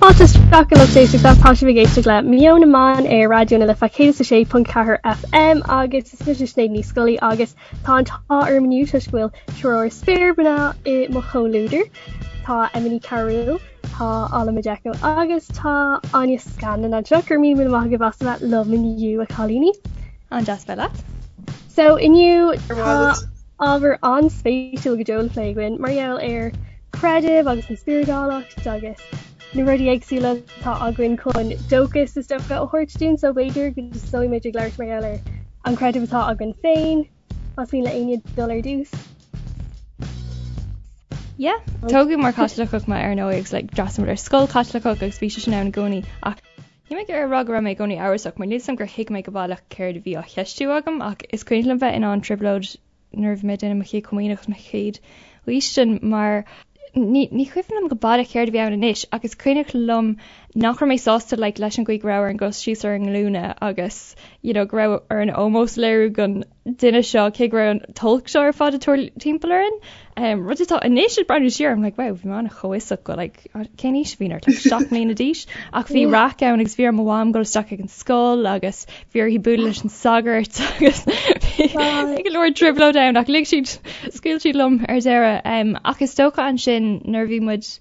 Fáilte isteach a lucht éisteachta, tá sibh ag éisteacht le Meon na Mban ar Raidió na Life 106.4 FM agus is mise Sinéad Ní Scolaí agus tá an t-ádh orm inniu toisc go bhfuil triúr spéirmhná i mo chomhluadar. Tá Emma Ní Chearúil, tá Ola Majekoh agus tá Áine Scanlon anseo. Go raibh míle míle maith agaibh as a bheith liom inniu a chailíní. An-deas bheith leat. So inniu tá ábhar an-spéisiúil go deo le plé againn mar gheall ar creideamh agus an spioradálacht agus na rudaí éagsúla atá againn chun dóchas is dócha a thabhairt dúinn so b'fhéidir go dtosóidh muid ag labhairt mar gheall ar an creideamh atá againn féin. Más mian le éinne dul ar dtús. Yeah, tógadh mar Chaitliceach mé ar ndóigh agus like d'fhreastail muid ar scoil Chaitliceach agus bhí sé sin ann i gcónaí ach níl mé ag iarraidh a rá go raibh mé i gcónaí amhrasach mar níl 'fhios a'm gur thuig mé go baileach céard a bhí á cheistiú agam ach is cuimhin liom bheith in an-trioblóid nuair a bhí mé ag déanamh mo chéad chomaoineach agus mo chéad fhaoistin mar ní ní cuimhin liom go baileach céard a bhí ann anois ach is cuimhneach liom nach raibh mé sásta like leis an gcaoi go raibh orainn dul síos ar ár nglúine agus you know go raibh orainn ómós a léiriú don duine seo cé go raibh an t-olc seo ar fad ag tarlú timpeall orainn. Um, rud atá anois ag breathnú siar, I'm like, wow, bhí mé an-chomhfhiosach go like, cén aois a bhí ort, like, 7 mbliana d'aois, ach bhí raic ann agus bhí ar mo mham dul isteach ag an scoil agus bhí uirthi bualadh leis an sagart agus bhí go leor trioblóid ann ach lig siad, scaoil siad liom ar deireadh. Um, ach is dócha ansin nuair a bhí muid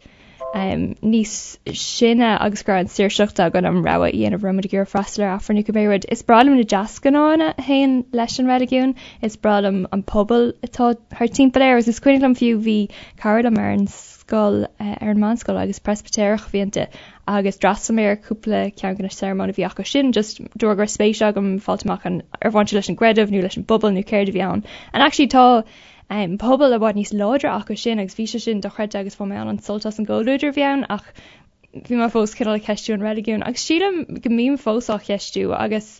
um, níos sine agus go raibh an saoirseacht againn an rogha a dhéanamh raibh muid ag iarraidh freastal ar Aifreann nó cibé rud. Is breá liom na deasghnátha a théann leis an reiligiún, is breá liom an pobal atá thart timpeall air agus is cuimhin liom fiú bhí cara liom ar an scoil, ar an meánscoil agus Preispitéireach a bhí inti agus d'fhreastail mé ar cúpla ceann de na searmanas a bhí acu sin just de bharr go raibh spéis agam fáilt amach an ar bhain sé leis an gcreideamh nó leis an bpobal nó céard a bhí ann. And actually tá um, pobal i bhfad níos láidre acu sin agus bhí sé sin dochreidte agus bhain mé an-sult as an gcomhluadar a bhí ann ach bhí mé fós cineál ag ceistiú an reiligiún agus sílim go mbím fós á cheistiú agus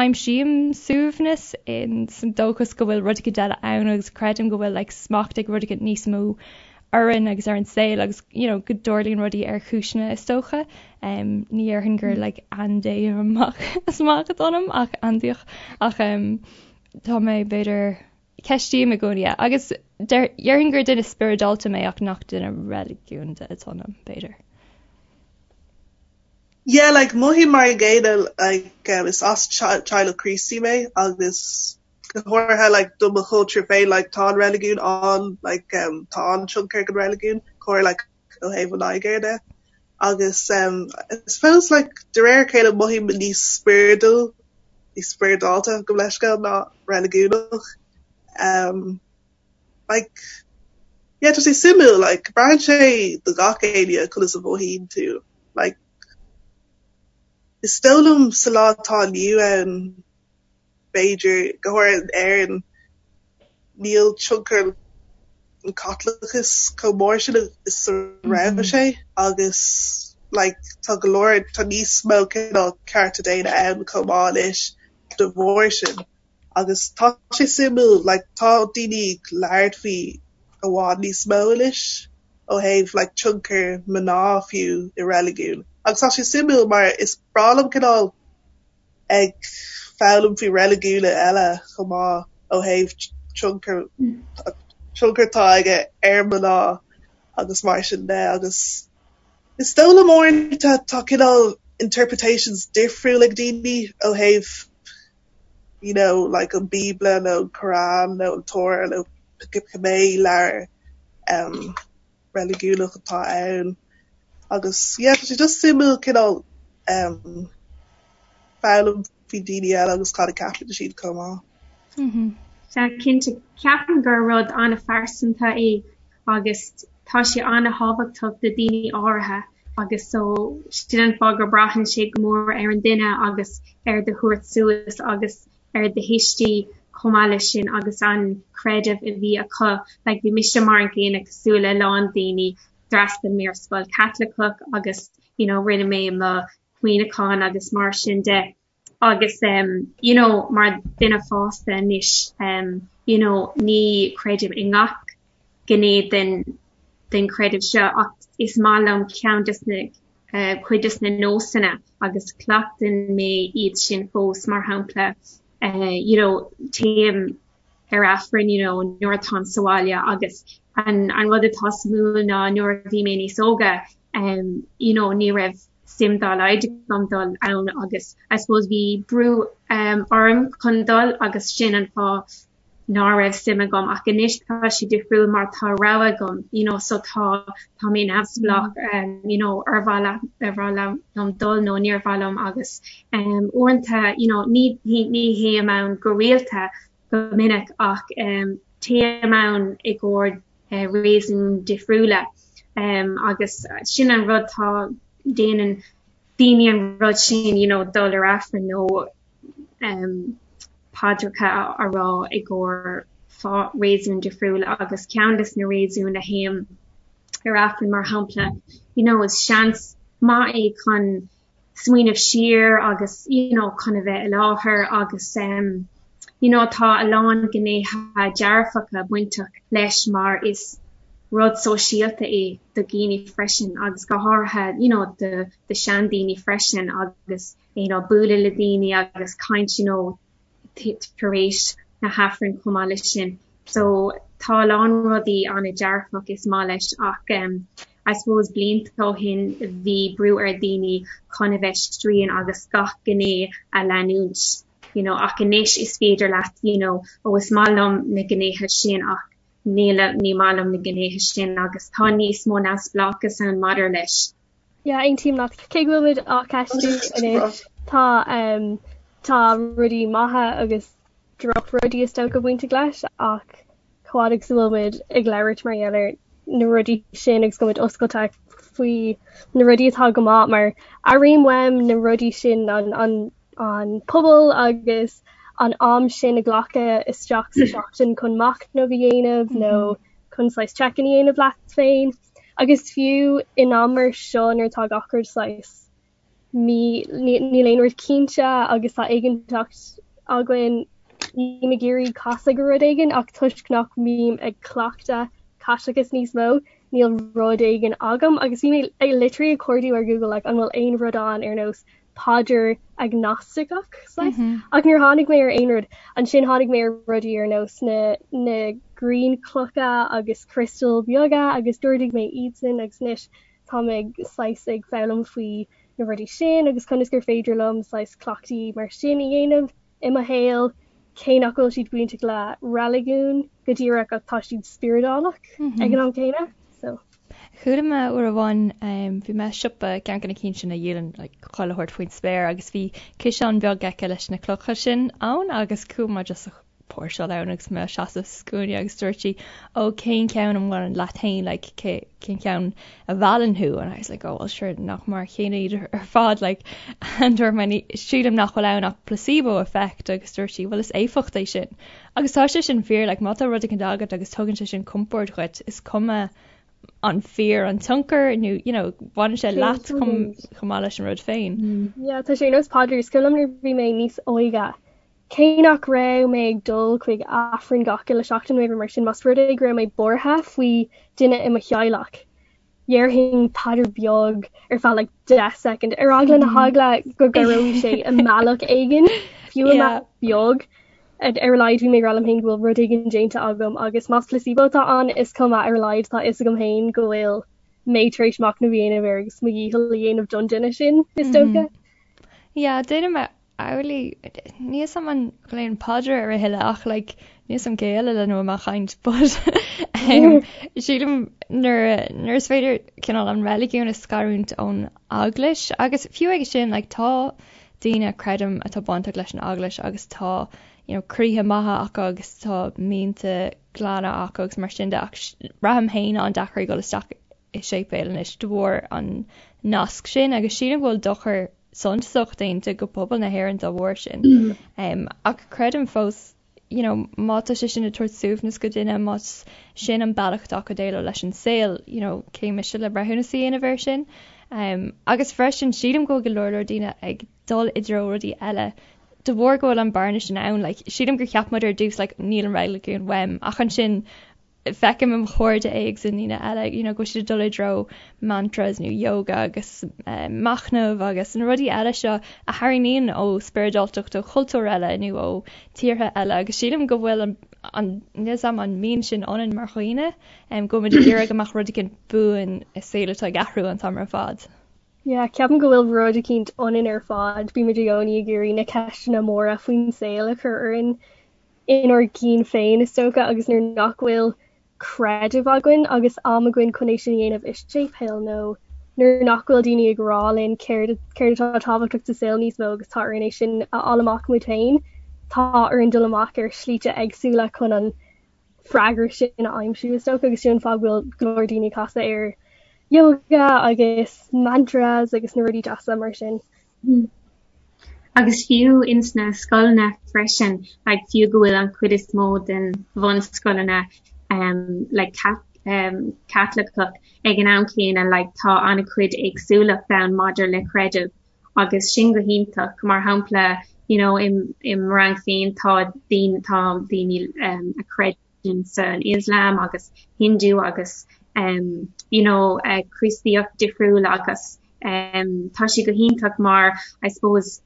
aimsím suaimhneas in san dóchas go bhfuil rud éicint eile ann agus creidim go bhfuil like, smacht ag rud éicint níos mó orainn agus ar an saol agus you know, go dtarlaíonn rudaí ar chúiseanna is dócha. Um, ní dhéarfainn gur like, andé amach is amach atá ionam ach aindiach ach um, tá mé b'fhéidir ceistím i gcónaí é agus déarfainn gur duine spioradálta mé ach nach duine reiligiúnda atá ionam, b'fhéidir. Yeah, like mothaím mar an gcéanna like um, is as teaghlach Críostaí mé agus go háirithe like do mo chultúr féin like tá an reiligiún an like um, tá an-tionchar ag an reiligiún go háirithe like ó thaobh an Nigéir de agus um, I suppose like de réir a chéile mothaím níos spioradúil níos spioradálta gabh mo leithscéal ná reiligiúnach. Um, like yeah tá sé suimiúil like braitheann sé do gach éinne conas a mhothaíonn tú like is dóigh liom sa lá atá inniu ann b'fhéidir, go háirithe in Éirinn, níl tionchar an Chaitliceachais chomh mór sin is a raibh sé agus like tá go leor, tá níos mó cineál cearta daonna ann chomh maith anois de bharr sin agus tá sé suimiúil like tá daoine ag labhairt faoi i bhfad níos mó anois ó thaobh like tionchar mná fiú i reiligiún agus tá sé suimiúil mar is breá liom cineál ag foghlaim faoi reiligiúin eile chomh maith ó thaobh tionchar tionchar atá aige ar mná agus mar sin de agus is dóigh liom uaireanta tá cineál interpretations difriúil ag daoine ó thaobh you know like an Bíobla nó an Quran nó an Torah nó cibé leabhar um, reiligiúnach atá ann agus yeah tá sé just suimiúil cineál um, foghlaim faoi daoine eile agus cad a ceapann siad chomh maith. Mm-hmm. Sea, cinnte, ceapaim gur rud an-phearsanta é agus tá sé an-thábhachtach do daoine áirithe agus so sin an fáth gur braitheann sé go mór ar an duine agus ar do thabhairt suas agus ar do thuistí chomh maith leis sin agus an creideamh a bhí acu. Like bhí mise mar an gcéanna cosúil le lán daoine, d'fhreastail mé ar scoil Caitliceach agus you know rinne mé mo chomaoineachán agus mar sin de agus um you know mar duine fásta anois um you know ní chreidim i ngach gné den den chreideamh seo ach is maith liom ceann des na cuid des na nósanna agus cleachtann mé iad sin fós, mar shampla you know téim ar Aifreann you know nuair atáim sa bhaile agus an an rud atá suimiúil ná nuair a bhí mé níos óga. um you know ní raibh suim dá laghad agam dul ann agus I suppose bhí brú um orm chun dul agus sin an fáth ná raibh suim agam ach anois tá sé difriúil mar tá rogha agam you know so tá tá mé neamhspleách um you know ar mhaith ar mhaith liom dul nó níor mhaith liom agus um uaireanta you know ní ní théim ann go rialta go minic ach um téim ann i gcomhair uh, réasún difriúla um agus sin an rud tá déanann daoine an rud sin you know dul ar Aifreann nó um paidreacha a rá i gcomhair fáth réasún difriúil agus ceann des na réasúin a théim ar Aifreann mar shampla you know is seans maith é chun smaoineamh siar agus you know chun a bheith i láthair agus um you know tá a lán gnéithe dearfacha bainteach leis mar is rud sóisialta é do dhaoine freisin agus go háirithe you know do do seandaoine freisin agus you know bualadh le daoine agus caint you know tar éis na hAifrinn chomh maith leis sin. So tá a lán rudaí an-dearfach is maith leis ach um I suppose blianta ó shin bhí brú ar daoine chun a bheith strian agus gach gné a leanúint you know ach anois is féidir leat you know ó is maith liom na gnéithe sin ach níl ní maith liom na gnéithe sin agus tá níos mó neamhspleáchas ann maidir leis. Yeah, aontaím leat. Cé go bhfuil muid á ceistiú anois, tá um, tá rudaí maithe agus drochrudaí is dócha bainteach leis ach chomh fada agus a bhfuil muid ag labhairt mar gheall ar na rudaí sin agus go muid oscailte faoi na rudaí atá go maith mar airím uaim na rudaí sin an, an, an pobal agus an am sin a ghlacadh isteach sa seachtain chun machnamh a dhéanamh nó chun saghas check-in a dhéanamh leat féin. Agus fiú in am mar seo nuair atá gach rud saghas mí níl aon rud cinnte agus tá éiginnteacht againn bím ag iarraidh casadh go rud éigin ach toisc nach mbím ag cleachtadh Caitleachas níos mó níl rud éigin agam agus bhí mé ag literally ag cuardú ar Google like an bhfuil aon rud ann ar nós paidir agnastacach saghas ach níor tháinig mé ar aon rud. Ansin tháinig mé ar rudaí ar nós na na grianchlocha agus criostail beaga agus d'ordaigh mé iadsan agus anois tá mé ag saghas ag foghlaim faoi na rudaí sin agus conas gur féidir liom saghas cleachtaí mar sin a dhéanamh i mo shaol cé nach bhfuil siad bainteach le reiligiún go díreach ach tá siad spioradálach ag an am céanna. So. Chuala mé uair amháin, bhí mé i siopa, ceann de na cinn sin a dhíolann like chuile shórt faoin spéir agus bhí ciseán beag aici leis na clocha sin ann agus chuaigh mé just a póirseáil ann agus mé ag seasamh sa scuaine agus dúirt sí ó cén ceann a mbaineann leat féin like cé cén ceann a mheallann thú and I was like oh well sure nach mar a chéile iad ar fad like and dúirt mé sílim nach bhfuil ann ach placebo effect agus dúirt sí well is éifeacht é sin Agus tá sé sin fíor, like má tá rud éicint agat agus tugann sé sin compord dhuit, is cuma an fíor an tionchar nó you know baineann sé leat chomh chomh maith leis an rud féin. Yeah, tá sé ar nós paidir, is cuimhin liom nuair a bhí mé níos óige, cé nach raibh mé ag dul chuig Aifreann gach uile seachtain nó mar sin, más rud é go raibh mé buartha faoi duine i mo theaghlach, dhéarfainn paidir beag ar feadh like 10 soicind ar eagla na heagla go gcabhróidh sé i mbealach éigin, fiú i mbealach beag. Ar a laghad bhí mé ag rá liom féin go bhfuil rud éigin déanta agam agus más placebo atá ann is cuma ar a laghad tá fhios agam féin go bhfuil mé tar éis machnamh a dhéanamh air agus mo dhícheall a dhéanamh don duine sin is dócha. Yeah, déanaim amhlaidh. Níl 'fhios a'm an nglaoim paidir air a thuilleadh ach like níl 'fhios a'm cé eile lena bhfuil mé ag caint but um, sílim nuair nuair is féidir cineál an reiligiún a scarúint ón eaglais agus fiú aige sin like tá daoine creidim atá bainteach leis an eaglais agus tá you know croíthe maithe acu agus tá mianta glana acu agus mar sin de ach braithim féin an-deacair ag dul isteach i séipéal anois de bharr an nasc sin agus sílim go bhfuil dochar suntasach déanta go pobal na hÉireann dá bharr sin. Ach creidim fós you know má tá sé sin ag tabhairt suaimhneas go duine, más sin an bealach atá acu déileáil leis an saol, you know cé mise le breithiúnas a dhéanamh air sin. Agus freisin sílim go bhfuil go leor leor daoine ag dul i dtreo rudaí eile de bharr go bhfuil an bearna sin ann. Like sílim gur cheap muid ar dtús like níl an reiligiún uaim ach ansin feicim i mo chairde agus i ndaoine eile you know go bhfuil siad ag dul i dtreo mantras nó yoga agus machnamh agus na rudaí eile seo a tharraingíonn ó spioradáltacht ó chultúir eile nó ó tíortha eile agus sílim go bhfuil an An níl 'fhios a'm an mbíonn sin ionainn mar dhaoine, go bhfuil muid ag iarraidh go mbeadh rud éicint buan i saol atá ag athrú an t-am ar fad. Yeah, ceapaim go bhfuil rud eicínt ionainn ar fad, bímid i gcónaí ag iarraidh na ceisteanna móra faoin saol a chur orainn inár gcinn féin is dócha agus nuair nach bhfuil creideamh againn agus am againn chun é sin a dhéanamh i séipéal nó nuair nach bhfuil daoine ag rá linn céard céard atá tábhachtach sa saol níos mó agus tá orainn é sin a fháil amach muid féin, tá orainn dul amach ar shlite éagsúla chun an freagra sin a aimsiú is dócha agus sin an fáth go bhfuil go leor daoine ag casadh ar yoga agus mantras agus na rudaí deasa mar sin. Agus fiú ins na scoileanna freisin, like fiú go bhfuil an chuid is mó den bhunscoileanna um like um Caitliceach ag an am céanna like tá an-chuid éagsúlacht ann maidir le creideamh agus sin go hiontach. Mar shampla you know i mo rang féin tá daoine tá daoine um a chreideann san Islam agus Hindu agus um you know uh, Críostaíocht difriúil agus um tá sé go hiontach mar I suppose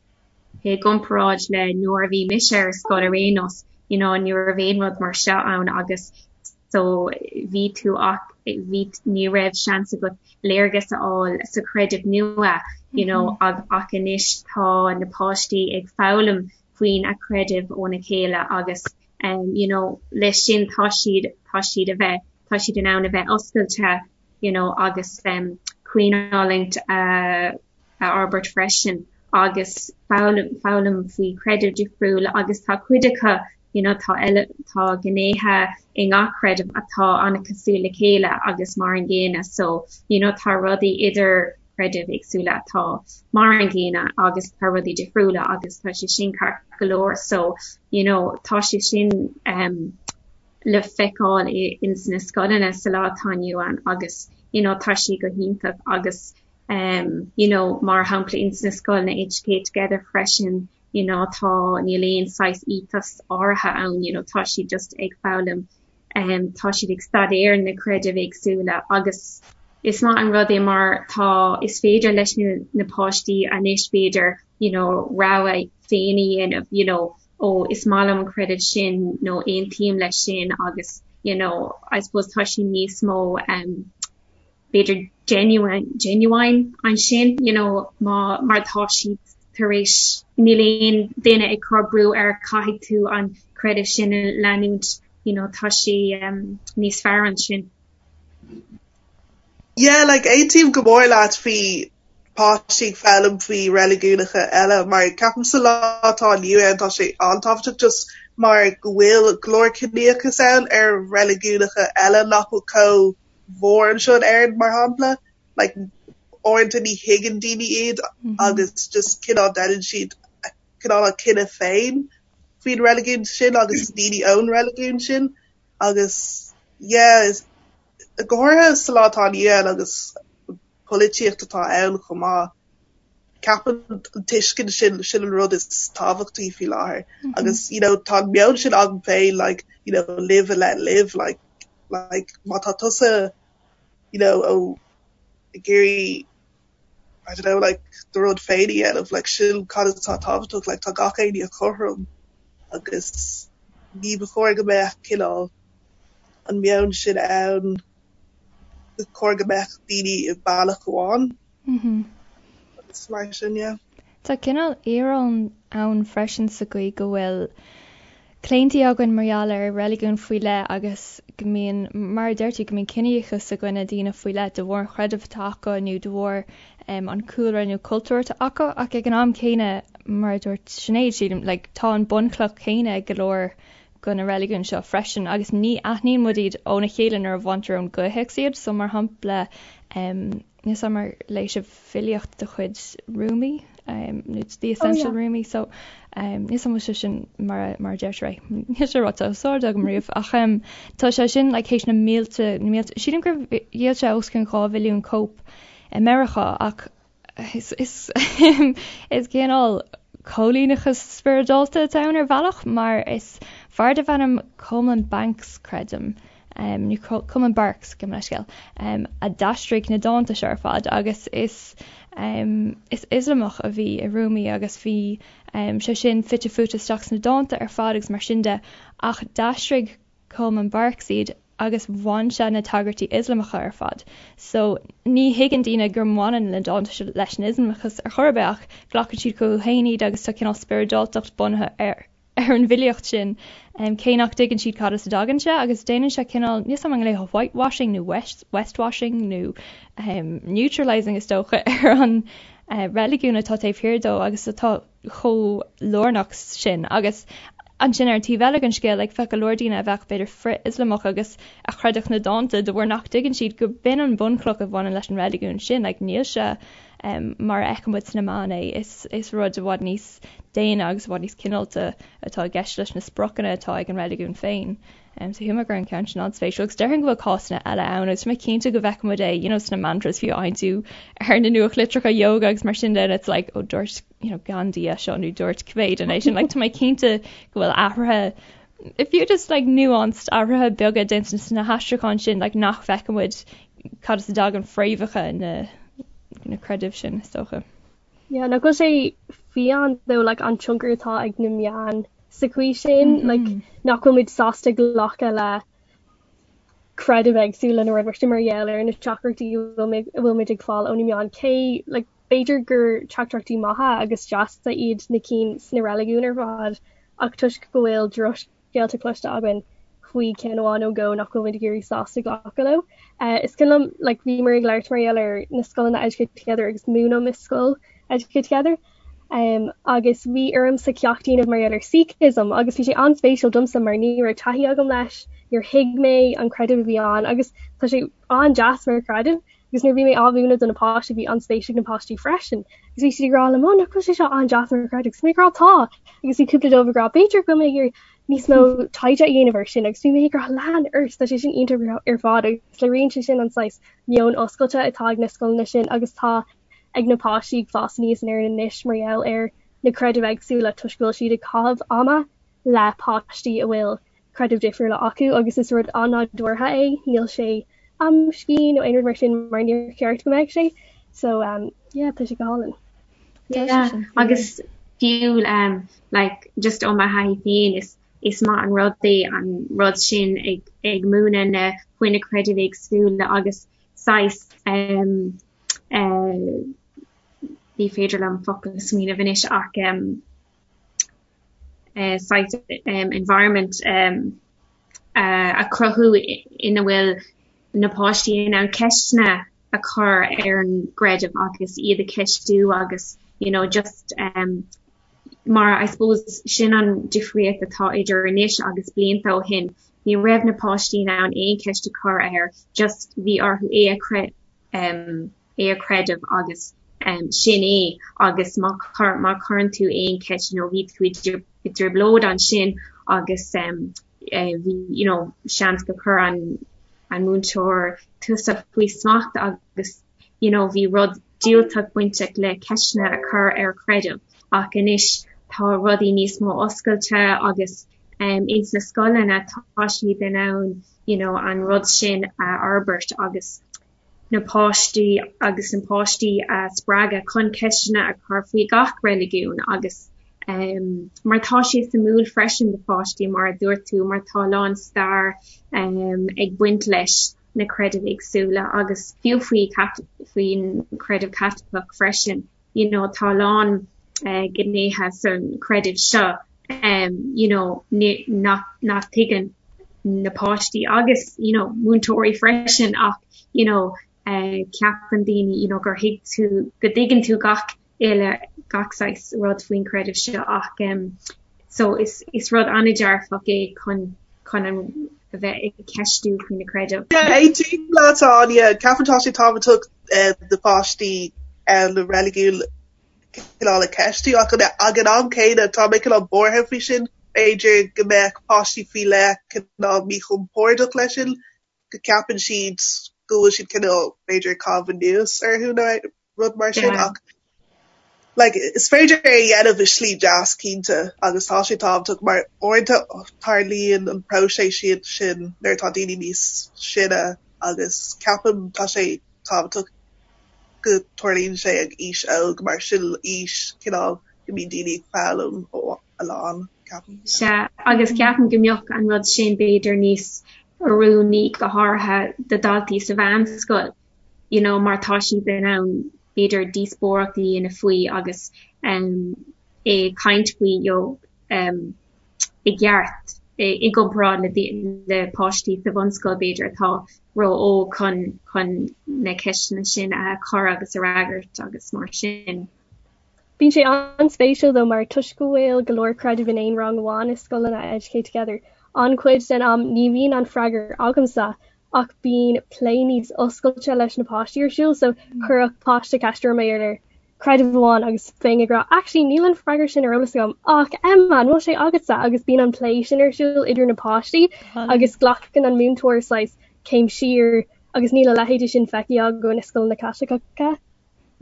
i gcomparáid le nuair a bhí mise ar scoil ar aon nós you know ní raibh aon rud mar seo ann agus so bhí tú ach bhí ní raibh seans agat léargas a fháil sa chreideamh nua you know ag ach anois tá na páistí ag foghlaim faoin a creideamh óna chéile agus um you know leis sin tá siad tá siad a bheith tá siad in ann a bheith oscailte you know agus um caoinfhulaingt a a fhorbairt freisin agus foghlaim foghlaim faoi chreideamh difriúil agus tá cuid acu you know tá eile tá gnéithe i ngach creideamh atá an-cosúil le chéile agus mar an gcéanna so you know tá rudaí idir creidimh éagsúla atá mar an gcéanna agus tá rudaí difriúla agus tá sé sin ceart go leor so you know tá sé sin um, le feiceáil ins na scoileanna sa lá atá inniu ann agus you know tá sé go hiontach agus um, you know mar shampla ins na scoileanna Educate Together freisin you know tá níl aon saghas ethos áirithe ann you know tá siad just ag foghlaim um, tá siad ag staidéar na creidimh éagsúla agus is maith an rud é mar tá is féidir leis na, na páistí anois b'fhéidir you know rogha féin a dhéanamh you know ó is maith liom an creideamh sin nó aontaím leis sin agus you know I suppose tá sé níos mó um, b'fhéidir genuine genuine ansin you know má mar tá siad tar éis níl aon duine ag cur brú ar caithfidh tú an creideamh sin a leanúint you know tá sé um, níos fearr ansin. Yeah, like aontaím go mór leat faoi páistí ag foghlaim faoi reiligiúnacha eile mar ceapaim sa lá atá inniu ann tá sé an-tábhachtach just mar go bhfuil go leor ciníochas ann ar reiligiúnacha eile nach bhfuil chomh mhór anseo in Éirinn mar shampla like uaireanta ní thuigeann daoine iad agus just cineál déanann siad cineál a cinneadh féin faoin reiligiún sin agus daoine ón reiligiún sin agus yeah go háirithe sa lá atá inniu ann agus polaitíocht atá ann chomh maith ceapaim an tuiscint sin sin an rud is tábhachtaí faoi láthair agus you know tá an meon sin agam féin like you know live and let live like like má tá tusa you know ó ag iarraidh I don't know like do rud féin a dhéanamh like sin cad atá tábhachtach like tá gach éinne cothrom agus ní ba chóir go mbeadh cineál an meon sin ann ba chóir go mbeadh daoine i bealach amháin. Agus mar sin yeah. Tá cineál íoróin ann freisin sa gcaoi go bhfuil claontaí againn mar gheall ar reiligiún faoi leith agus go mbíonn, mar a deir tú, go mbíonn ciníochas i gcoinne daoine faoi leith de bharr an chreidimh atá acu nó de bharr an cúlra nó cultúr atá acu ach ag an am céanna, mar a dúirt Sinéad, sílim, like, tá an bunchloch chéanna ag go leor de na reiligiúin seo freisin agus ní aithníonn muid iad óna chéile nuair a bhaintear ón gcomhthéacs iad so mar shampla níl 's a'm ar léigh sibh filíocht de chuid Rumi nó The Essential Rumi so níl 's a'm an bhfuil sé sin mar a mar a deirtear é níl sé ráite os ard agam riamh ach tá sé sin like théis na mílte na mílte sílim gur dhíol sé os cionn 2 mhilliún cóip i Meiriceá ach Is is cineál coilíneachas spioradálta atá ann ar bhealach mar is fear darbh ainm Coleman Banks, creidim. nó Coleman Barks, gabh mo leithscéal, a d'aistrigh na dánta seo ar fad agus is is Ioslamach a bhí i Rumi agus bhí sé sin fite fuaite isteach sna dánta ar fad agus mar sin de ach d'aistrigh Coleman Barks iad agus bhain sé na tagairtí Ioslamacha ar fad. So ní thuigeann daoine go mbaineann na dánta seo leis an Ioslamachas ar chor ar bith ach glacann siad chucu féin iad agus tá cineál spioradáltacht bunaithe ar ar an bhfilíocht sin cé nach dtuigeann siad cad as a dtagann sé agus déanann sé cineál, níl 's agam an nglaofá whitewashing nó westwashing nó neutralising is dócha ar an reiligiún atá taobh thiar dó agus atá chomh lárnach sin agus ansin ar an taobh eile den scéal like bheadh go leor daoine a bheadh b'fhéidir frith-Ioslamach agus a chreidfeadh na dánta de bharr nach dtuigeann siad go b'in an bhunchloch a bhaineann leis an reiligiún sin like níl sé um, mar a fheiceann muid sna meáin é is, is rud i bhfad níos daonna agus i bhfad níos cineálta atá i gceist leis na spriocanna atá ag an reiligiún féin. Um, so shíl mé go raibh an ceann sin an-spéisiúil agus déarfainn go bhfuil cásanna eile ann agus tá mé cinnte go bhfeiceann muid é you know, sna mantras fiú a fhaigheann tú ar na nuachtlitreacha yoga agus mar sin de and it's like oh dúirt you know, Gandhi é seo nó dúirt cibé duine é sin like, tá mé cinnte go bhfuil athruithe fiú just like nuanced athruithe beaga déanta sna haistriúcháin sin like, nach bhfeiceann muid cad as a dtagann fréamhacha na, na creidimh sin is dócha. Yeah, nach bhfuil sé fiáin though like an tionchar atá ag na meáin sa chaoi sin, mm -hmm. like nach bhfuil muid sásta glacadh le creidimh éagsúla nó rud mar sin mar gheall ar na teachtaireachtaí a bhfuil muid ag fáil ó na meáin cé like b'fhéidir gur teachtaireachtaí maithe agus deasa iad na cinn sna reiligiúin ar fad ach toisc go bhfuil drochscéalta cloiste againn faoi ceann amháin nó dhó nach bhfuil muid ag éirí sásta glacadh leo. Is cuimhin liom like bhíomar ag labhairt mar gheall ar na scoileanna Educate Together agus múinim i scoil Educate Together um, agus bhí ormsa ceacht a dhéanamh mar gheall ar Sikhism agus bhí sé an-spéisiúil domsa mar ní raibh taithí agam leis, níor thuig mé an creideamh a bhí ann agus tá sé an-deas mar chreideamh agus nuair a bhí mé á mhúineadh do na páistí bhí an-spéis ag na páistí freisin agus bhí siad ag rá liom oh nach bhfuil sé seo an-deas mar chreideamh agus mé ag rá tá agus bhí cúpla dóibh ag rá b'fhéidir go bhfuil mé ag iarraidh níos mó taighde a dhéanamh ar sin agus bhí mé ag rá lean ort tá sé sin iontach ar fad agus léiríonn sé sin an saghas meon oscailte atá ag na scoileanna sin agus tá ag na páistí ag fás aníos in Éirinn anois mar gheall ar na creidimh éagsúla toisc go bhfuil siad ag caitheamh ama le páistí a bhfuil creidimh difriúla acu agus is rud an-nádúrtha é, níl sé amscaí nó aon rud mar sin mar níor cheart go mbeadh sé. So um, yeah, tá sé go hálainn. Yeah, agus fiú um, like, just ó mo thaithí féin is is maith an rud é an rud sin ag, ag múineadh na faoi na creidimh éagsúla agus saghas um, uh, ní féidir liom focal a smaoineamh anois ach um, saghas environment a chruthú ina bhfuil na páistí in ann ceisteanna a chur ar an gcreideamh agus iad a cheistiú agus you know just um, mar I suppose sin an difríocht atá idir anois agus blianta ó shin. Ní raibh na páistí in ann aon cheist a chur air, just bhí orthu é a um, é a chreideamh agus sin é agus má má chuireann tú aon cheist you know bhí tú i dtrioblóid ansin agus bhí you know seans go chuir an an múinteoir tusa faoi smacht agus you know bhí rud diúltach bainteach le ceisteanna a chur ar chreideamh ach anois tá rudaí níos mó oscailte agus um, ins na scoileanna tá siad in ann you know an rud sin a fhorbairt agus na páistí agus na páistí a spreagadh chun ceisteanna a chur faoi gach reiligiún agus um, mar tá sé suimiúil freisin do pháistí mar a dúirt tú mar tá a lán stair um, ag baint leis na creidimh éagsúla agus fiú faoi faoin creideamh Caitliceach freisin you know tá a lán uh, gnéithe san creideamh seo um, you know nach nach tuigeann na páistí agus you know múinteoirí freisin ach you know uh, ceapann daoine you know gur thuig tú go dtuigeann tú gach uile gach saghas rud faoin creideamh seo ach um, so is, is rud an-dearfach é chun chun an a bheith ag ceistiú faoi na creidimh. Yeah, aontaím leat Áine, ceapaim tá sé tábhachtach uh, do pháistí uh, na reiligiún cineál a cheistiú ach ag an am céanna tá mé cineál buartha faoi sin, b'fhéidir go mbeadh páistí faoi leith cineál míchompordach leis sin, go gceapann siad go bhfuil siad cineál b'fhéidir ag caitheamh anuas orthu nó rud mar sin ach. Like is féidir é a dhéanamh i slí deas cinnte agus tá sé tábhachtach mar uaireanta tarlaíonn an próiseas sin nuair atá daoine níos sine agus ceapaim tá sé tábhachtach go dtarlaíonn sé ag aois óg mar sin aois cineál go mbíonn daoine ag foghlaim a lán, ceapaim. Sea, agus ceapaim go mbeadh an rud sin b'fhéidir níos oiriúnaí go háirithe do dhaltaí sa mheánscoil. you know mar tá siad in ann b'fhéidir díospóireacht a dhéanamh faoi agus um ag caint faoi you know um i gceart i gcomparáid le le páistí sa bhunscoil b'fhéidir atá ró-óg chun chun na ceisteanna sin a chur agus a fhreagairt agus mar sin. Bíonn sé an-spéisiúil though mar toisc go bhfuil go leor creidimh in aon rang amháin i scoileanna Educate Together, an-chuid den am ní bhíonn an freagra agamsa ach bíonn plé níos oscailte leis na páistí ar siúl so chuirfeadh páiste ceist orm ar creideamh amháin agus bheinn ag rá actually níl an freagra sin ar eolas agam ach Emma an bhfuil sé agatsa agus bíonn an plé sin ar siúl idir na páistí agus glacann an múinteoir saghas céim siar agus níl a leithéidí sin feicthe againn i scoileanna Caitliceacha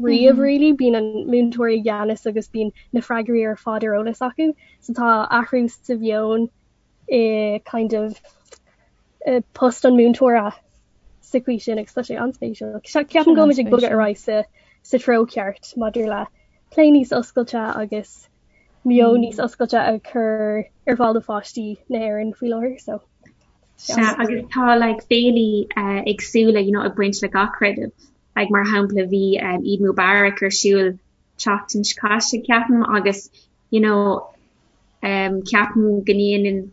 riamh really bíonn an múinteoir i gceannas agus bíonn na freagraí ar fad ar eolas acu so tá athrú sa mheon i kind of post an múinteora sa chaoi sin agus tá sé an-spéisiúil. Ceapaim go bhfuil muid ag bogadh ar aghaidh sa sa treo ceart maidir le plé níos oscailte agus meon níos oscailte a chur ar fáil do pháistí na hÉireann faoi láthair so. Sea, agus tá like féilí uh, éagsúla you know, ag baint le gach creideamh. Like, mar shampla bhí um, Eid Mubarak ar siúl tseachtain seo caite ceapaim agus you know um ceapaim go ndéanann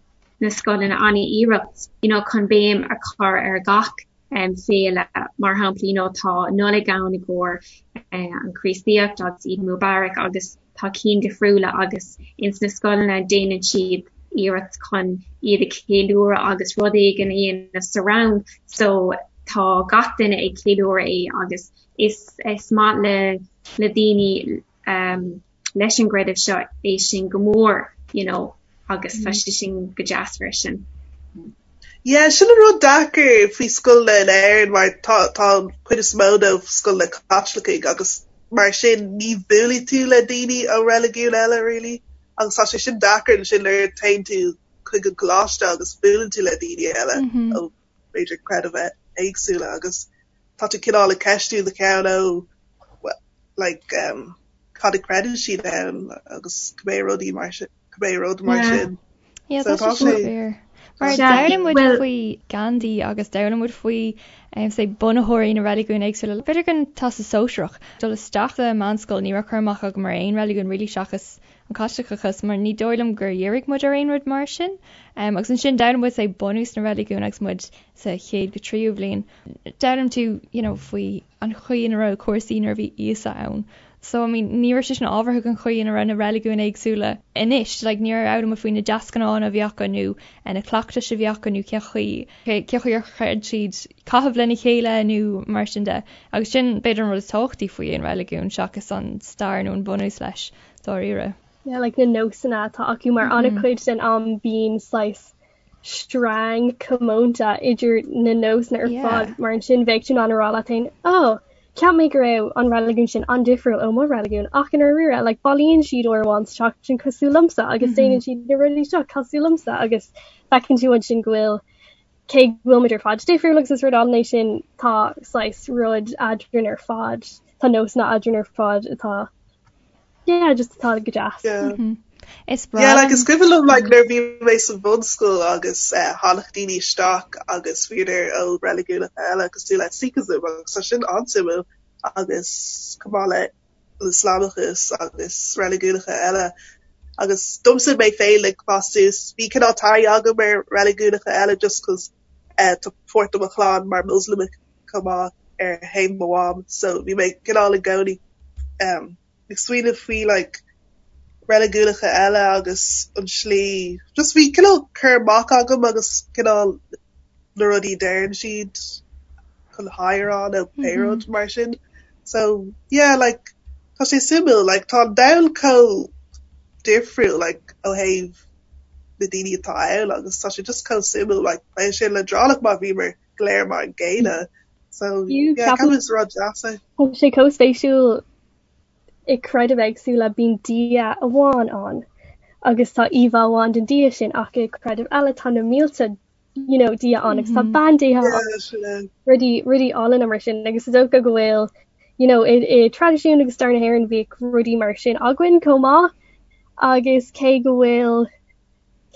na scoileanna an-iarracht you know chun béim a chur ar gach um féile mar shampla you know tá Nollaig ann i gcomhair uh, an Chríostaíocht agus Eid Mubarak agus tá cinn difriúla agus ins na scoileanna déanann siad iarracht chun iad a cheiliúradh agus rud éigin a dhéanamh sa rang so tá gach duine ag ceiliúradh é agus is is maith le le daoine um leis an gcreideamh seo é sin go mór you know agus tá sé sin go deas freisin. Yeah, sin an rud deacair faoi scoileanna in Éirinn mar tá tá an chuid is mó dóibh scoileanna Caitlicigh agus mar sin ní bhuailfidh tú le daoine ó reiligiún eile really agus tá sé sin deacair ansin nuair a théann tú chuig an coláiste agus buaileann tú le daoine eile ó b'fhéidir creidimh éagsúla agus tá tú cineál ag ceistiú do cheann ó like um, cad a creideann siad ann agus cibé rudaí mar sin cibé rud mar sin. Yeah, So tá sé fíor. Mar d'fhoghlaim muid faoi Gandhi agus d'fhoghlaim muid faoi um, say, bunaitheoirí na reiligiún éagsúla. B'fhéidir don Teastas Sóisearach dul isteach sa meánscoil ní raibh cur amach agam ar aon reiligiún really seachas an Caitliceachas mar ní dóigh liom gur dhírigh muid ar aon rud mar sin. Um, agus ansin d'fhoghlaim muid say, bunús na reiligiún agus muid sa chéad go tríú bhliain. D'fhoghlaim tú you know, faoi an chaoi ina raibh cúrsaí nuair a bhí Íosa ann. So, I mean, ní raibh sé sin ábhartha don chaoi ina raibh na reiligiúin éagsúla anois. Like, níor fhoghlaim muid faoi na deasghnátha a bhí acu nó na cleachtais a bhí acu nó cén chaoi, cén chaoi ar chreid siad caitheamh lena chéile nó mar sin de. Agus sin, b'fhéidir, an rud is tábhachtaí faoi aon reiligiún seachas an stair nó an bunús leis, dáiríre. Yeah, like na nósanna atá acu mar an-chuid den am bíonn saghas sreang comónta idir na nósanna ar fad mar ansin bheadh tú in ann a rá leat féin oh cheap mé go raibh an reiligiún sin an-difriúil ó mo reiligiún ach i ndáiríre like bailíonn siad uair amháin sa tseachtain cosúil liomsa agus déanann siad na rudaí seo cosúil liomsa agus feiceann tú ansin go bhfuil cé go bhfuil muid ar fad difriúil agus is rud álainn é sin tá saghas rud eadrainn ar fad tá nósanna eadrainn ar fad atá Yeah, just atá go deas. Yeah. Mm -hmm. Is breá. Yeah, like is cuimhin liom like nuair bhí mé sa bhunscoil agus eh, tháinig daoine isteach agus bhíodar ó reiligiúnacha eile cosúil le Sikhism agus tá sin an-suimiúil agus chomh maith le Ioslamachas agus reiligiúnacha eile. Agus domsa mé féin ag fás suas bhí cineál taithí agam ar reiligiúnacha eile just 'cause eh, tá páirt de mo chlann mar Moslamach chomh maith ar thaobh mo mham so bhí mé cineál i gcónaí um, ag smaoineamh faoi like reiligiúnacha eile agus an slí just bhí cineál cur amach agam agus cineál na rudaí a deireann siad chun haigh a rá nó pé rud mar sin. So yeah like tá sé suimiúil like tá an domhan chomh difriúil like ó thaobh na daoine atá ann agus tá sé just chomh suimiúil like bheadh sé leadránach má bhíomar go léir mar an gcéanna. So yeah ceapaim is rud deas é. Tá sé chomh spéisiúil. i creidimh éagsúla bíonn Dia amháin ann agus tá íomhá amháin den Dia sin ach i creidimh eile tá na mílte you know, Dia ann agus tá bandéithe ann, rudaí rudaí álainn mar sin agus is dócha go bhfuil you know, i, i traidisiún agus stair na hÉireann bhíodh rudaí mar sin againn chomh maith agus cé go bhfuil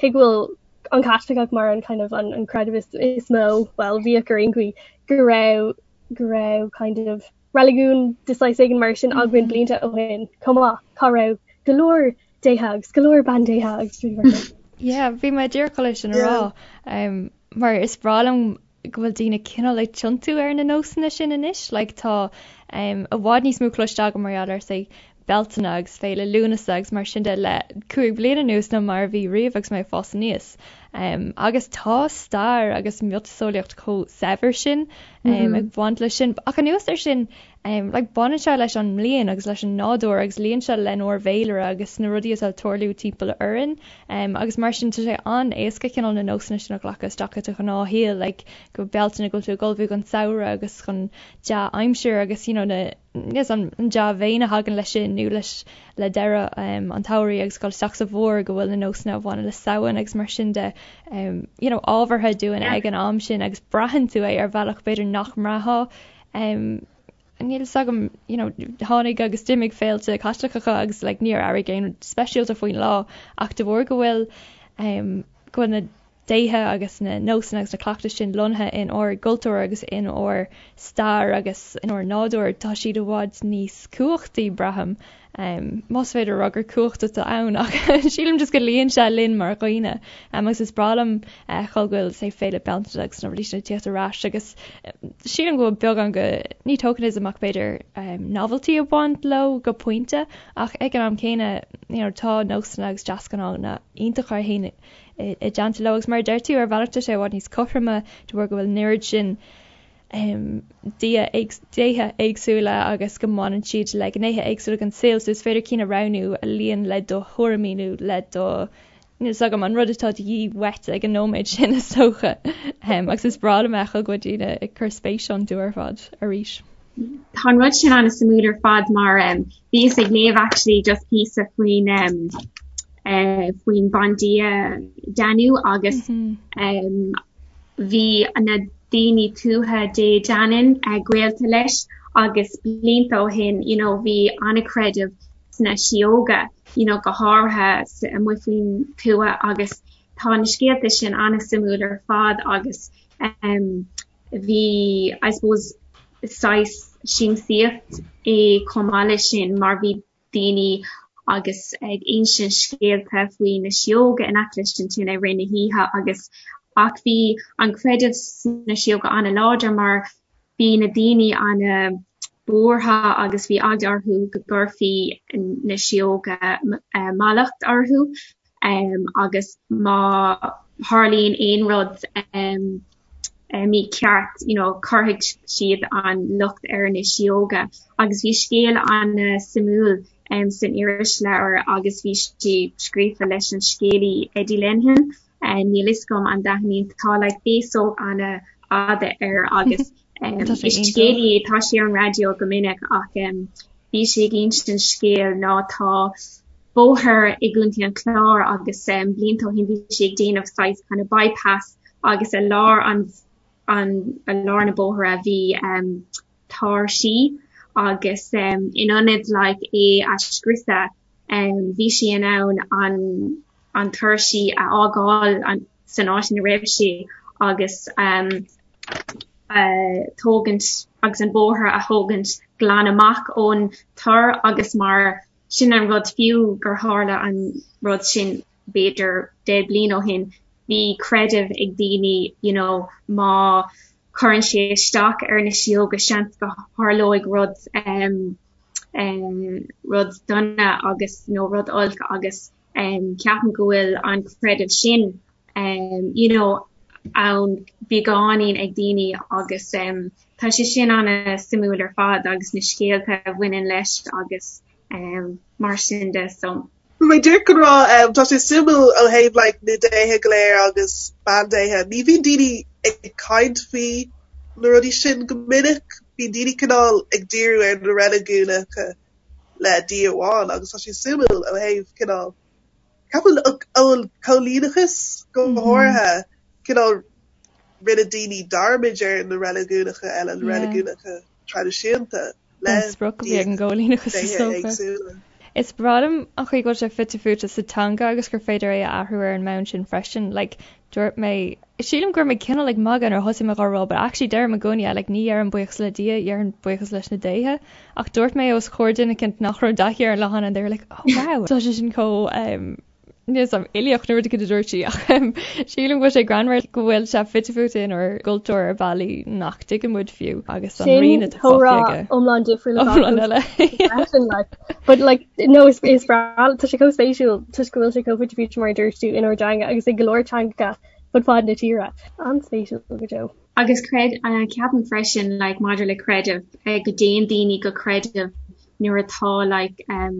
cé go bhfuil an Caitliceach mar an kind of an, an creideamh is, is mó, well bhíodh ar aon chaoi go raibh go raibh kind of reiligiún de saghas éigin mar sin againn blianta ó shin chomh maith, cá raibh go leor déithe agus go leor bandéithe agus rudaí mar sin. Yeah, bhí mé díreach chun é sin a rá, mar is breá liom go bhfuil daoine cineál ag tiontú ar na nósanna sin anois, like tá i bhfad níos mó cloiste agam mar gheall ar say Bealtaine agus Féile Lúnasa agus mar sin de le 5 bliana anuas ná mar a bhí riamh agus mé ag fás aníos. Agus tá stair agus miotaseolaíocht chomh saibhir sin ag baint leis sin. Ach anuas air sin, like baineann sé leis an mbliain agus leis an nádúr agus luíonn sé lenár bhféilire agus na rudaí atá ag tarlú timpeall orainn. Agus mar sin tá sé an-éasca cineál na nósanna sin a ghlacadh isteach i do ghnáthshaol, like go Bealtaine go bhfuil tú ag ullmhú don samhradh agus chun dea-aimsir agus you know na Yes, an dea-mhéin a thagann leis sin nó leis le deireadh an tsamhraidh agus dul isteach sa bhfómhar go bhfuil na nósanna a bhaineann le Samhain agus mar sin de you know ábhartha dúinn ag an am sin agus braitheann tú é ar bhealach b'fhéidir nach mbraithfeá níl fhios agam you know tháinig agus d'imigh féilte Caitliceacha agus like níor airigh aon rud speisialta faoin lá ach de bharr go bhfuil go bhfuil na déithe agus na nósanna agus na cleachtais sin lonnaithe in ár gcultúr agus in ár stair agus in ár nádúr, tá siad i bhfad níos cumhachtaí, braithim. Más féidir a rá gur cumhacht atá ann ach sílim just go luíonn sé linn mar dhaoine. Agus is breá liom a fheiceáil go bhfuil, say, Féile Bealtaine agus na rudaí sin ag tíocht ar ais agus sílim go bhfuil beagán de, ní tokenism ach b'fhéidir novelty ag baint leo go pointe ach ag an am céanna, you know, tá nósanna agus deasghnátha iontacha a théann i dteannta leo agus mar a deir tú, ar bhealach tá sé i bhfad níos cothroime de bharr go bhfuil an oiread sin dia, déithe éagsúla agus go mbaineann siad le gnéithe éagsúla den saol so is féidir cinn a roghnú a luíonn le do thuairimí nó le do níl 's agam an rud atá de dhíth uait ag an nóiméad sin is dócha. Agus is breá liom a fheiceáil go bhfuil daoine ag cur spéis iontu ar fad arís. Tá an rud sin an-suimiúil ar fad mar bhíos ag léamh actually just píosa faoin faoin bandia Danu agus bhí na daoine tuaithe Dé Danann gaolta leis agus blianta ó shin you know bhí an-chreideamh sna síóga you know go háirithe amuigh faoin tuath agus tá na scéalta sin an-suimiúil ar fad agus bhí I suppose saghas siamsaíocht é chomh maith leis sin mar bhí daoine agus ag insint scéalta faoi na síóga in aice leis an tine i rith na hoíche agus ach bhí an creideamh sna síóga an-láidir mar bhí na daoine an-bhuartha agus bhí eagla orthu go gcuirfí na síóga mallacht orthu agus má tharlaíonn aon rud mícheart you know cuirfidh siad an locht ar na síóga agus bhí scéal an-suimiúil san irisleabhar agus bhí sé scríofa leis an scéalaí Eddie Lenihan níl fhios agam an dtaithníonn tá like féasóg an-fhada air agus is scéalaí é tá sé ar an raidió go minic ach bhí sé ag insint scéal ná tá bóthar i gContae an Chláir agus blianta ó shin bhí sé ag déanamh saghas kind of bypass agus i lár an an i lár na bóithre bhí tor sí agus in ionad like é a scriosadh bhí sé in ann an an tor sí a fhágáil an san áit ina raibh sé agus tógaint agus an bóthar a thógaint glan amach ón tor agus mar sin an rud fiú gur tharla an rud sin b'fhéidir 10 bliain ó shin, bhí creideamh ag daoine you know má chuireann sé isteach ar na síóga seans go tharlóidh rud um, um, rud dona agus nó rud olc agus um, ceapaim go bhfuil an creideamh sin um, you know, ann beagáinín ag daoine agus um, tá sé sin an-suimiúil ar fad agus na scéalta a bhaineann leis agus um, mar sin de so. Bhí mé díreach chun rá um, tá sé suimiúil ó thaobh like, na déithe go léir agus bandéithe. Ní bhíonn daoine ag caint faoi na rudaí sin go minic, bíonn daoine cineál ag díriú ar na reiligiúnacha. le Dia amháin agus tá sé suimiúil ó thaobh cineál ceapaim ón choilíneachas go háirithe cineál rinne daoine dearmad ar na reiligiúnacha eile, na reiligiúnacha traidisiúnta le sprioc a bhí ag an gcoilíneachas is dócha. Is breá liom an chaoi go bhfuil sé fite fuaite sa teanga agus gur féidir é a athrú ar an mbonn sin freisin. Like, dúirt mé, sílim go raibh mé cineál ag magadh nuair a thosaigh mé dhá rá, but actually deirim i gcónaí é, like, ní dheirim buíochas le Dia, dheirim buíochas leis na déithe. Ach dúirt mé os comhair duine eicínt nach raibh taithí ar an leathán and they were like, oh wow, tá sé sin chomh um, níl 'fhios a'm uilíoch nó rud éicint a dúirt sí ach sílim go bhfuil sé greannmhar go bhfuil sé fite fuaite inár gcultúr ar bhealaí nach dtuigeann muid fiú agus an rian atá fágtha aige. iomlán difriúil iomlán eile. But like no is is breá tá sé chomh spéisiúil toisc go bhfuil sé chomh fite fuaite mar a dúirt tú inár dteanga agus i go leor teangacha fud fad na tíre. An-spéisiúil go deo. Agus creid ceapaim freisin like maidir le creideamh go dtéann daoine go creideamh nuair atá like um,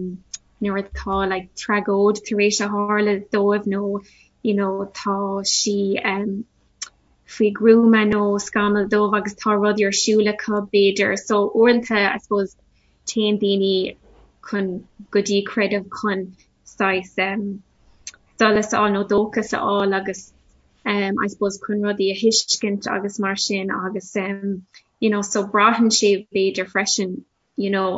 nuair atá like tragóid tar éis a tharla dóibh nó you know tá sí um faoi ghruama nó scamall dubh agus tá rudaí ar siúl acu b'fhéidir. So uaireanta I suppose téann daoine chun go dtí creideamh chun saghas um solas a fháil nó dóchas a fháil agus um I suppose chun rudaí a thuiscint agus mar sin agus um you know so braitheann sé b'fhéidir freisin you know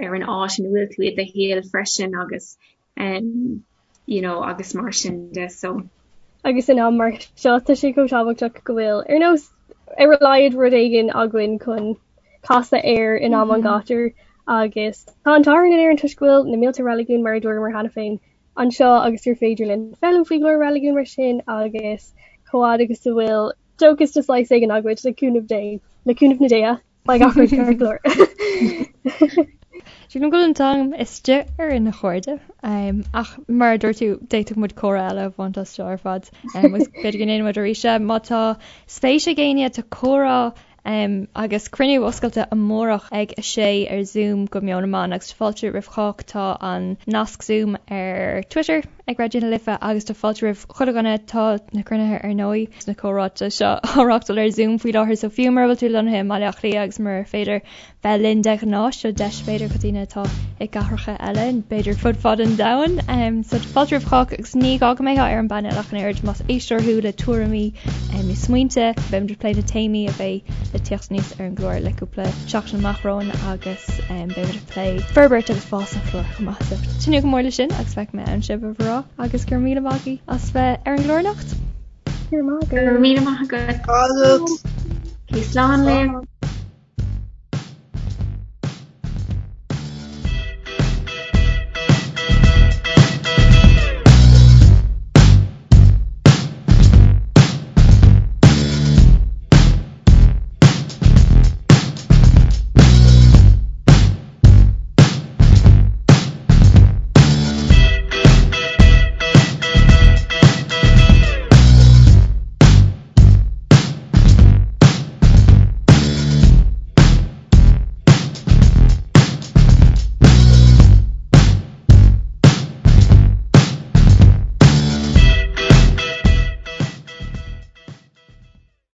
ar an áit ina bhfuil tú i do shaol freisin agus um you know agus mar sin de so. Agus in am mar seo tá sé chomh tábhachtach go bhfuil ar nós ar a laghad rud éigin againn chun casadh air in am an ghátair agus tá an t-ádh orainn in Éirinn toisc go bhfuil na mílte reiligiún mar a dúramar cheana féin anseo agus gur féidir linn foghlaim faoi go leor reiligiún mar sin agus chomh fhad agus a bhfuil dóchas de saghas éigin againn le cúnamh Dé le cúnamh na déithe. Beidh gach rud ceart go leor. Sílim go bhfuil an t-am istigh orainn a chairde. Ach mar a dúirt tú, d'fhéadfadh muid comhrá eile a bhaint as seo ar fad. Agus b'fhéidir go ndéanfaidh muid arís é. Má tá spéis ag éinne, tá comhrá agus cruinniú oscailte amárach ag 6 ar Zoom go Meon na mBan agus tá fáilte roimh chách. Tá an nasc Zoom ar Twitter ag Raidió na Life agus tá fáilte roimh chuile dhuine. Tá na cruinnithe ar ndóigh. na comhráite seo á reáchtáil ar Zoom faoi láthair so fiú mura bhfuil tú lonnaithe i mBaile Átha Cliath agus murar féidir bheith linn de ghnáth, seo deis b'fhéidir do dhaoine atá i gcathracha eile, b'fhéidir fud fad an domhain. So tá fáilte roimh chách agus ní gá go mbeifeá ar an bpainéal ach an oiread más éisteoir thú le tuairimí nó smaointe, beimid ag plé na téamaí a bheidh le tíocht aníos ar an gclár le cúpla seachtain amach romhainn agus beimid ag plé forbairt agus fás an chláir chomh maith. So tnúth go mór leis sin agus feicfidh mé ann sibh a mhná agus go raibh míle maith agaibh as bheith ar an gclár anocht. Go raibh maith agat. Go raibh míle maith agat. Agat. Slán libh.